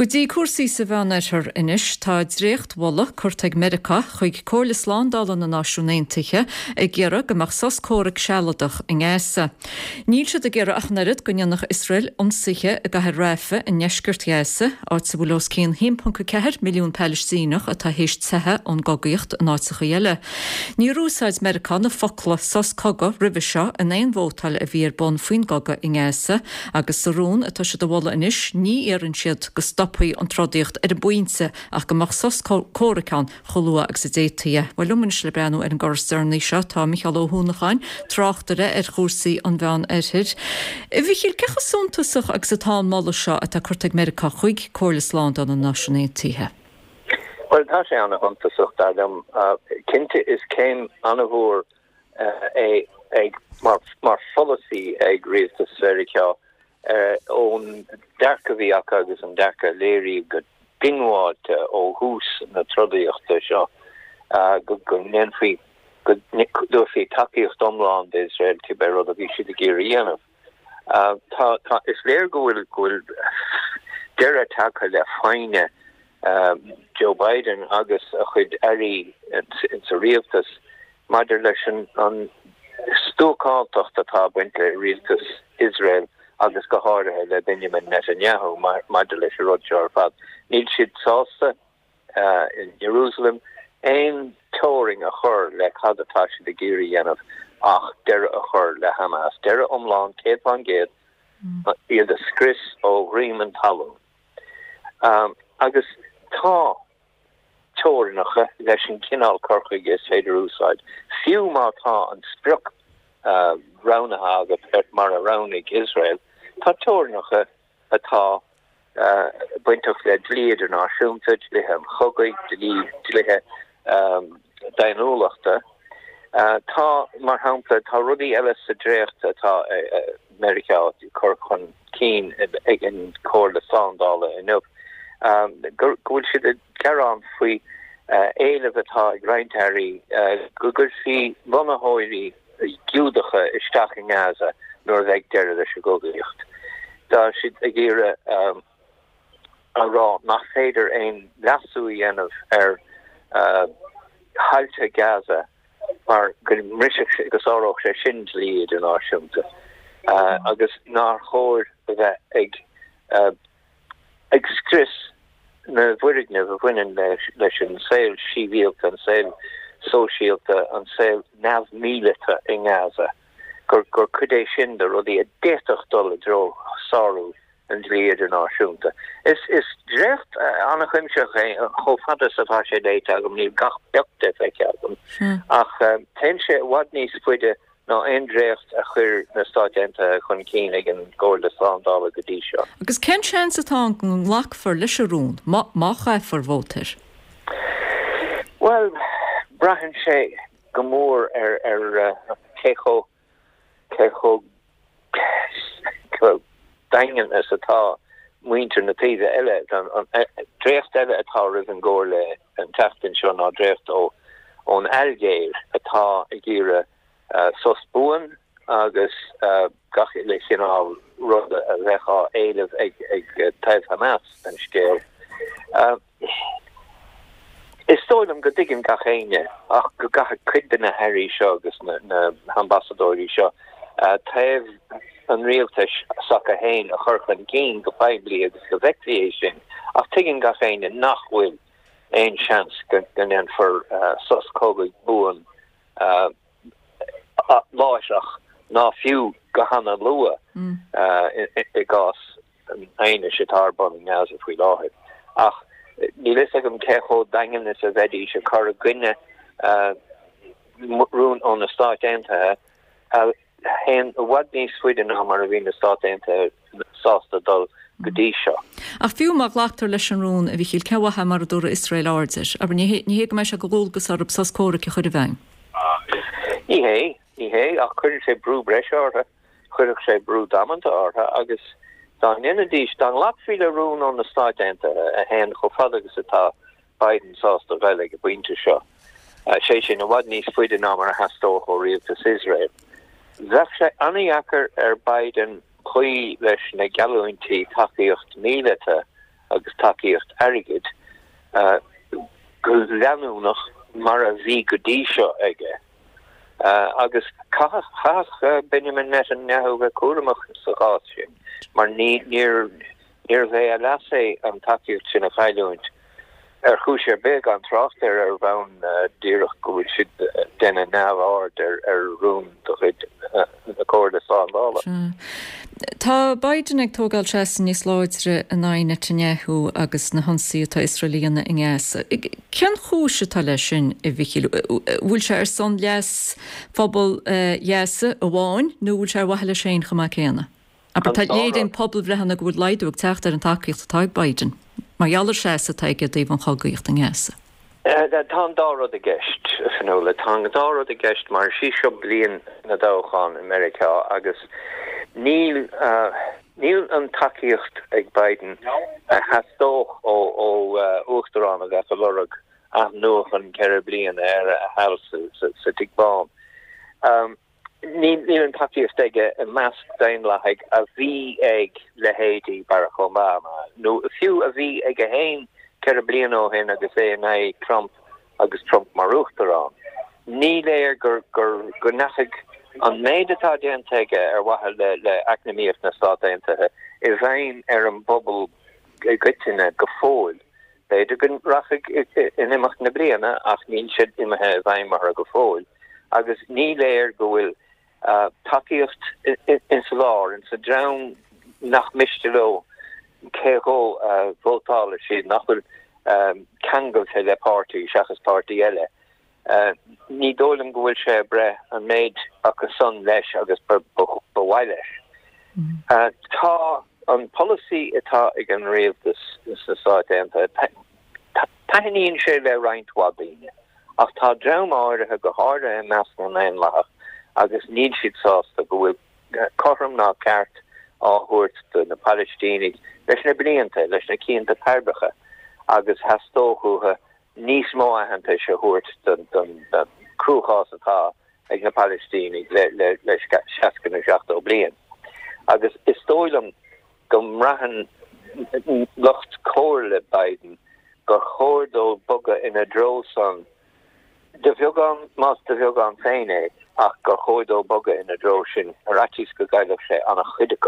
Go dtí cúrsaí sa Mheánoirthear anois. Tá dréachtmholadh curtha ag Meiriceá chuig Comhairle Slándála na Náisiún Aontaithe ag iarraidh go mbeadh sos comhraic sealadach i nGaza. Níl siad ag iarraidh ach an oiread go ndéanfadh Iosrael ionsaithe i gcathair Rafah i ndeisceart Ghaza, áit a bhfuil os cionn 1.4 milliún Palaistíneach atá théis teitheadh ón gcogaíocht in áiteacha eile. Níor úsáid Meiriceá na focla 'sos cogaidh' roimhe seo in aon vótáil a bhí ar bun faoin gcogadh i nGaza agus sa rún atá siad a mholadh anois ní iarrann siad go stopfaí an trodaíocht ar an bpointe ach go mbeadh sos comhraic ann chomh luath agus a d'fhéadfaí é. Bhuel, liom anois le breathnú ar an gcor is deireanaí seo tá Micheál Ó hUanacháin, tráchtaire ar chúrsaí an Mheán Oirthir. A Mhichíl, cé chomh suntasach agus atá an moladh seo atá curtha ag Meiriceá chuig Comhairle Slándála na Náisiún Aontaithe? Bhuel, tá sé ana-shuntasach, dar liom. Cinnte, is céim ana-mhór é ag, mar pholasaí ag rialtas Mheiriceá ón dearcadh a bhí acu agus an dearcadh a léiríodh go diongbháilte ó thús na trodaíochta seo go ndéanfaí, go dtabharfaí tacaíocht iomlán d'Iosrael cibé rud a bhí siad ag iarraidh a dhéanamh. Tá, tá, is léir go bhfuil, go bhfuil deireadh tagtha le foighne Joe Biden agus a chuid airí insa rialtas maidir leis an stuacántacht atá ag baint le rialtas Iosrael agus go háirithe le Benjamin Netanyahu maidir leis an rud seo ar fad. Níl siad sásta in Jerusalem aon teorainn a chur le cad atá siad ag iarraidh a dhéanamh ach deireadh a chur le Hamas, deireadh iomlán, 100%, iad a scrios ó dhroim an talún. Agus tá teorainneacha leis an chineál cur chuige is féidir a úsáid, fiú má tá an sprioc roghnaithe agat mar a roghnaigh Iosrael, tá teorainneacha atá bainteach le dlí idirnáisiúnta, dlíthe an chogaidh, dlí, dlíthe daonnúlachta. Tá, mar shampla, tá rudaí eile sa dréacht atá Meiriceá ag cur chun cinn ag an Chomhairle Slándála inniu, go bhfuil siad ag gearán faoi éileamh atá ag roinnt airí go gcuirfí lonnaitheoirí Giúdacha isteach i nGaza nuair a bheidh deireadh leis an gcogaíocht. Tá siad ag iarraidh a rá nach féidir aon leasú a dhéanamh ar thailte Gaza mar go mbrisfeadh sé, go sáródh sé sin dlí idirnáisiúnta agus nár chóir a bheith ag ag scrios na bhfoirgneamh a bhaineann leis an saol sibhialta, an saol sóisialta, an saol neamh-mhíleata i nGaza, gur gur cuid é sin de rudaí a d'fhéadfadh dul i dtreo sárú an dlí idirnáisiúnta. Is is dréacht an-chuimsitheach é, chomh fada is atá sé léite agam, níl gach pioc de feicthe agam, ach téann sé i bhfad níos faide ná aon dréacht a chuir na Stáit Aontaithe chun cinn ag an gComhairle Slándála go dtí seo. Agus cén seans atá ann go nglacfar leis an rún, má má chaithfear vóta air? Bhuel, braitheann sé go mór ar ar cé chomh cé chomh daingean is atá muintir na taoibhe eile. An dréacht eile atá roimh an gComhairle an tseachtain seo ná dréacht ón Ailgéir atá ag iarraidh sos buan agus gach uile chineál ruda a bheadh á éileamh ag taobh Hamas den scéal. Is dóigh liom go dtuigeann gach éinne ach go gcaithfidh cuid de na hairí seo agus na hambasadóirí seo taobh an rialtais s'acu féin a chur chun cinn go poiblí agus go bhfeicfí é sin ach tuigeann gach éinne nach bhfuil aon seans go ndéanfar sos cogaidh buan láithreach ná fiú go hana-luath i gcás an aighnis atá ar bun i nGaza faoi láthair. Ach níl fhios agam cé chomh daingean is a bheidís ag cur i gcoinne rún ó na Stáit Aontaithe a théann i bhfad níos faide ná mar a bhí na Stáit Aontaithe sásta dul go dtí seo. Ach fiú má ghlactar leis an rún, a Mhichíl, cén mhaith é mura dtabharfaidh Iosrael aird air? Abair, ní hé ní hé go mbeidh sé de dhualgas orthu sos comhraic a chur i bhfeidhm. Ní hé, ní hé, ach cuireann sé brú breise orthu. Chuirfeadh sé brú damanta orthu agus dá ndéanfaidís, dá nglacfaí le rún ó na Stáit Aontaithe a théann chomh fada agus atá Biden sásta a ghoil ag an bpointe seo, sé sin, i bhfad níos faide ná mar a theastódh ó rialtas Iosrael, bheadh sé an-dheacair ar Biden cloí leis na geallúintí tacaíocht míleata. agus tacaíocht airgid go leanúnach mar a bhí go dtí seo aige. Agus chaithfeadh Benjamin Netanyahu bheith cúramach sa chás sin mar níorbh é a leas é an tacaíocht sin a chailliúint ar chúis ar bith, gan trácht ar ar bhonn díreach go bhfuil siad ag déanamh neamhaird ar rún de chuid na Comhairle Slándála. Tá Biden ag tógáil seasamh níos láidre in aghaidh Netanyahu agus na hionsaí atá Iosrael a dhéanamh i nGaza. Cén chúis atá leis sin, a Mhichíl? Bhfuil sé ar son leas phobal Ghaza amháin nó bhfuil sé ar mhaithe leis féin chomh maith céanna? Abair, tá léiríonn pobalbhreitheanna go bhfuil laghdú ag teacht ar an tacaíocht atá ag Biden mar gheall ar seasamh atá aige i dtaobh an chogaíocht i nGaza. Tá an dá rud i gceist, a Fionnuala. Tá an dá rud i gceist mar is í seo bliain na dtoghchán i Meiriceá agus níl níl an tacaíocht ag Biden a theastódh ó uachtarán a bheadh ag lorg athnuachan ceithre bliana ar a sheal sa Tigh Bán. Níl an tacaíocht aige i measc Daonlathaigh a bhí ag leithéidí Barack Obama, nó fiú a bhí aige féin 4 bliana ó shin agus é in aghaidh Trump agus Trump mar uachtarán. Ní léir gur go ndeachaigh an méid atá déanta aige ar mhaithe le eacnamaíocht na Stát Aontaithe i bhfeidhm ar an bpobal i gcoitinne go fóill. B'fhéidir go rachaidh in imeacht na bliana ach níl sé imithe i bhfeidhm orthu go fóill agus ní léir go bhfuil tacaíocht ins an lár, ins an dream nach miste leo cé dhó a vótálfaidh siad, nach bhfuil ceangailte le páirtí seachas páirtí eile. Ní dóigh liom go bhfuil sé ag breith an méid acu san leis agus ba mhaith leis. Tá an polasaí atá ag an rialtas sna Stáit Aontaithe, taitníonn sé le roinnt mhaith daoine, ach tá dream áirithe, go háirithe i measc na nDaonlathach, agus níl siad sásta go bhfuil cothrom ná ceart á thabhairt do na Palaistínigh leis na blianta, leis na cianta pairbeacha, agus theastódh uathu níos mó aitheantais a thabhairt don cruachás atá ag na Palaistínigh le 60 nó 70 bliain. Agus is dóigh liom go mbraitheann lucht comhairle Biden gur chóir dó bogadh ina dtreo san, de bheagán, más de bheagán féin é, ach gur chóir dó bogadh ina dtreo sin ar fhaitíos go gcaillfeadh sé an-chuid acu.